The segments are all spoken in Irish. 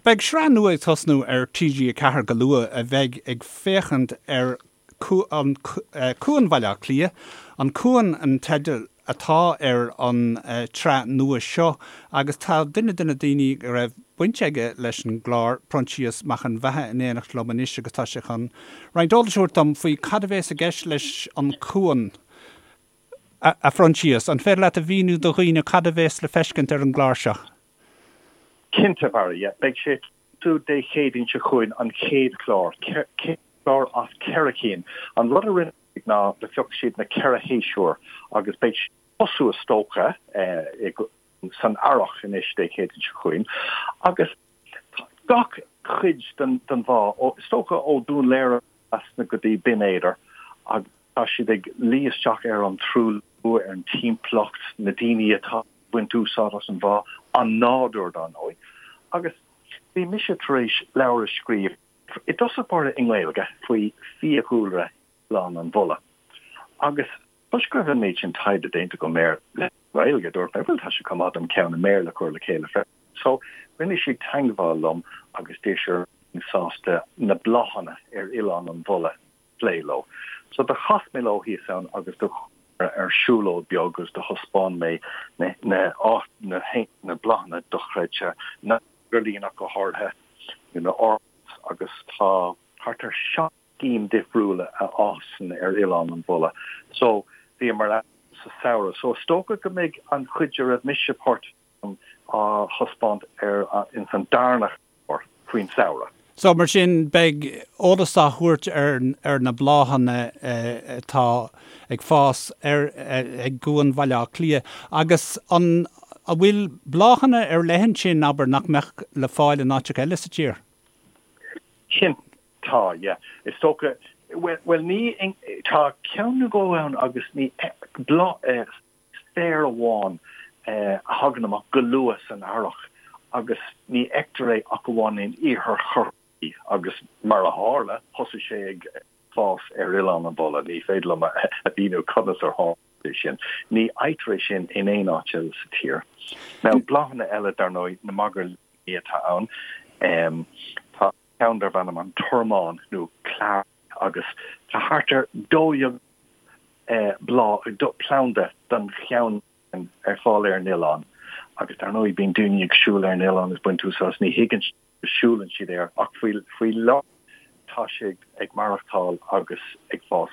Beidh sraith nua ag tosnú ar TG4 go luath a bheidh ag féachaint ar Cuan Bhaile Átha Cliath. An Cuan an teideal atá ar an tsraith nua seo agus tá duine de na daoine a raibh baint aige leis an gclár, Proinsias Mac an Bheatha in éineacht liom anois agus tá sé chun roinnt eolais a thabhairt dom faoi cad a bhéas i gceist leis An Cuan. A Phroinsias, an féidir leat a mhíniú do dhaoine cad a bhéas le feiscint ar an gclár seo? Cinnte, Barry, yeah. Beidh sé ag tosú Dé Céadaoin seo chugainn, an chéad chlár, chéad chlár as ceithre cinn. An rud a rinne siad ná do phioc siad na ceithre shéasúr agus beidh sé ag tosú is dócha san earrach anois Dé Céadaoin seo chugainn agus tá gach cuid den bhá, is dócha ó Dún Laoghaire trasna go dtí Binn Éadair agus tá siad ag luí isteach ar an truailliú, ar an timpeallacht, na daoine atá ag baint úsáid as an bhá, an nádúr dar ndóigh. Agus bhí mise tar éis leabhar a scríobh, i dtosach báire i nGaeilge, faoi fiadhúlra Oileán an Bhulla. Agus toisc go raibh an méid sin taighde déanta agam air le Gaeilge, dúirt mé, bhuel tá sé chomh maith dom ceann i mBéarla a chur le chéile freisin. So, rinne siad teangmháil liom agus d'iarr siad an mbeinn sásta na bláthanna ar Oileán an Bhulla a phlé leo. So, do chas mé leo thíos ann agus do chuamar ar siúlóid beag agus do thaispeáin mé na na na bláthanna dochreidte, na magairlín ach go háirithe, na orchids agus tá thart ar 7 gcinn difriúla a fhásann ar Oileán an Bhulla. So, bhíomar ann sa samhradh. So, is dócha go mbeidh an chuid a raibh mise páirteach ann á thaispeáint ar ins an darna chlár faoin samhradh. So, mar sin, beidh eolas á thabhairt ar ar na bláthanna atá ag fás ar ag gCuan Bhaile Átha Cliath. Agus an an bhfuil bláthanna ar leith ansin, abair, nach mbeadh le fáil in áiteacha eile sa tír? Cinnte. Tá, yeah. Is dócha, bhuel, bhuel ní, tá ceann nó dhó ann agus ní, bláth, féar amháin a thagann amach go luath san earrach agus ní fheictear é ach amháin in iarthar Chorcaí agus mar a tharla, thosaigh sé ag fás ar Oileán an Bhulla. Ní féidir liom a mhíniú conas ar tharla sé sin. Ní fhaightear é sin in aon áit eile sa tír. Now, bláthanna eile, dar ndóigh, na magairlíní atá ann. Tá. ceann darb ainm an Tormán nó Clear agus tá thart ar 12,000 bláth, planda den cheann sin ar fáil ar an oileán agus dar ndóigh bíonn daoine ag siúl ar an oileán is baint úsáid as, ní thuigeann siad go siúlann siad air ach faoi faoi láthair tá sé ag maireachtáil agus ag fás.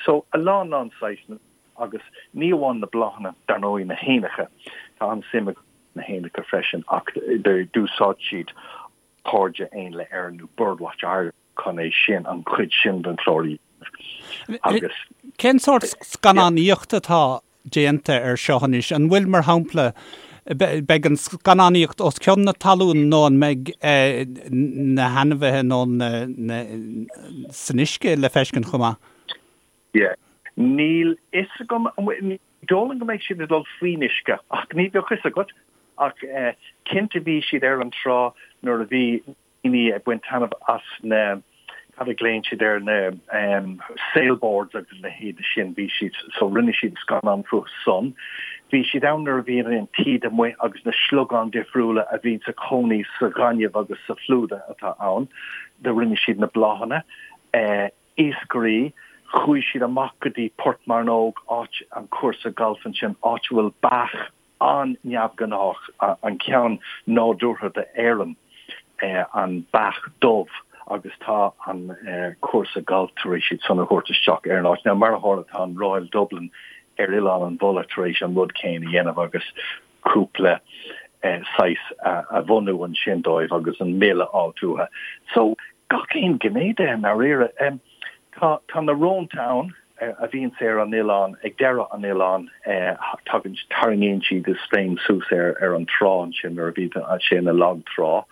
So a lán lán saghsanna agus ní amháin na bláthanna dar ndóigh na héanacha, tá an-suim agam sna héanacha freisin ach d'úsáid siad Cairde Éanlaith Éireann nó Birdwatch Ireland chun é sin, an chuid sin den chlár a dhéanamh agus. Cén sórt scannánaíochta atá déanta air seo anois? An bhfuil, mar shampla, beidh an scannánaíocht os cionn na talún nó an mbeidh na hainmhithe nó na san uisce le feiscint chomh maith? Yeah. Níl fhios agam, ní dóigh liom go mbeidh siad ag dul faoin uisce ach ní bheadh fhios agat. Ach cinnte bhí siad ar an trá nuair a bhí daoine ag baint taitneamh as na, cad a ghlaonn siad air, na sailboards agus a leithéid sin, bhí siad, so rinne siad scannán fúthu san. Bhí siad ann nuair a bhí an taoide amuigh agus na sliogáin difriúla a bhíonn sa chónaí sa ghaineamh agus sa phlúda atá ann, do rinne siad na bláthanna. Iascairí, chuaigh siad amach go dtí Port Mearnóg, áit an cúrsa gailf ansin, áit a bhfuil beach an-neamhghnách, an ceann nádúrtha d'Éirinn, an beach dubh, agus tá an cúrsa gailf tar éis iad san a thabhairt isteach ar an áit. Now, mar a tharla, tá an Royal Dublin ar Oileán an Bhulla tar éis an rud céanna a dhéanamh agus cúpla saghas a bhunú ansin dóibh agus an mil a fháilt uathu. So, gach aon ghné de i ndáiríre. Tá tá na rónta ann a bhíonns ar an oileán, ag deireadh an oileáin, tagann, tarraingíonn siad iad féin suas ar ar an trá ansin nuair a bhíonn sé ina lag trá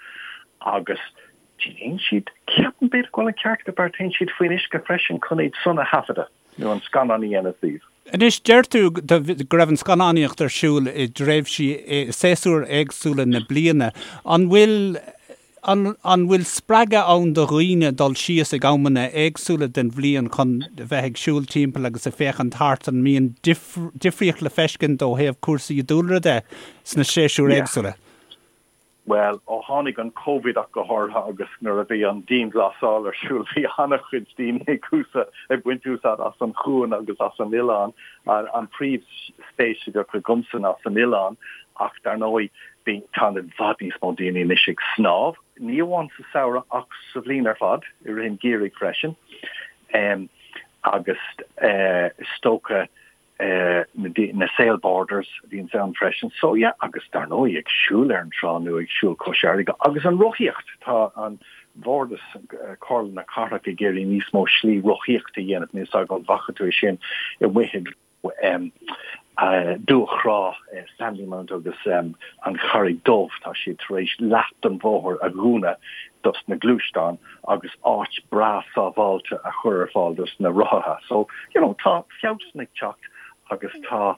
agus téann siad, ceapaim b'fhéidir go bhfuil an ceart agat Barry, téann siad faoin uisce freisin chun iad san a thaifeadadh nó an scannán a dhéanamh díobh. Anois, deir tú go raibh an scannánaíocht ar siúl i dtréimhsí, i séasúir éagsúla na bliana. An bhfuil An bhfuil spreagadh ann do dhaoine dul síos ag amanna éagsúla den bhliain chun bheith ag siúl timpeall agus ag féachaint thart? An mbíonn difríocht le feiscint ó thaobh cúrsaí dúlra de sna séasúir éagsúla? Bhuel, ó tháinig an Covid ach go háirithe agus nuair a bhí an dianghlasáil ar siúl bhí an-chuid daoine ag úsáid, ag baint úsáid as an chuan agus as an oileán. An príomhspéis a bheadh agamsa ná san oileán ach dar ndóigh bhí, tá i bhfad níos mó daoine anois ag snámh, ní amháin sa samhradh ach sa bhliain ar fad, i rith an gheimhridh freisin. Agus is dócha na sailboarders a bhíonns ann freisin. So yeah, agus dar ndóigh ag siúl ar an trá nó ag siúl cois fharraige agus an rothaíocht, tá an Bhardas, Comhairle na Cathrach ag iarraidh níos mó slí rothaíochta a dhéanamh, níl 's agam an bhfaca tú é sin amuigh i Dumhach Thrá, Sandymount agus an Charraig Dubh, tá siad tar éis leath den bhóthar a dhúnadh dos na gluaisteáin agus áit breá sábháilte a chur ar fáil dos na rothaithe. So, you know, tá feabhas ag teacht agus tá,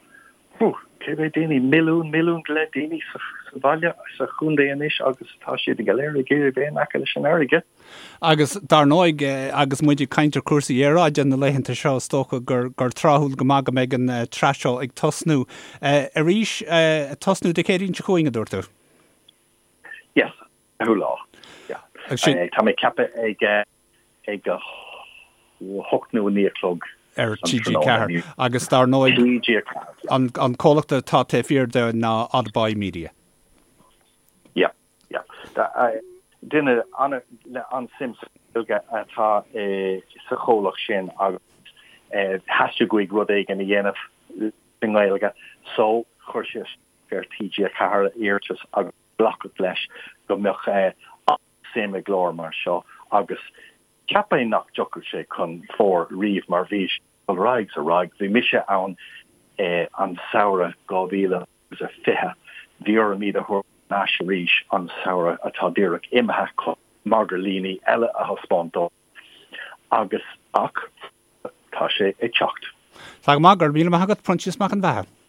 whew, cé mhéad daoine, milliún, milliún go leith daoine sa bhaile, sa chontae anois agus tá siad go léir ag iarraidh bheith in aice leis an fharraige. Agus dar ndóigh, agus muid ag caint ar chúrsaí aeráide na laethanta seo, is dócha gur gur tráthúil go maith go mbeidh an tsraith seo ag tosnú arís, tosnú Dé Céadaoin seo chugainn, a dúirt tú? Yes, 4ú lá. Yeah. Tá mé ag ceapadh ag ag a hocht nó a 9 a chlog ar TG4 agus dar ndóigh an an comhlacht atá taobh thiar de ná Oddboy Media. Yeah, yeah. Duine le an-suim sa Ghaeilge atá sa chomhlacht sin agus theastaigh uaidh rud éigin a dhéanamh i nGaeilge so chuir sé ar TG4 iarratas agus glacadh leis go mbeadh an-suim i gclár mar seo agus cheapfainn nach dtiocfadh sé chun fóir riamh mar bhí sé ag dul ar aghaidh is ar aghaidh. Bhí mise ann an samhradh 2020, bhí orm iad a thabhairt thar n-ais arís an samhradh atá díreach imithe chun magairlíní eile a thaispeáint dóibh agus ach tá sé ag teacht. Tá go maith, go raibh míle maith agat, Proinsias Mac an Bheatha.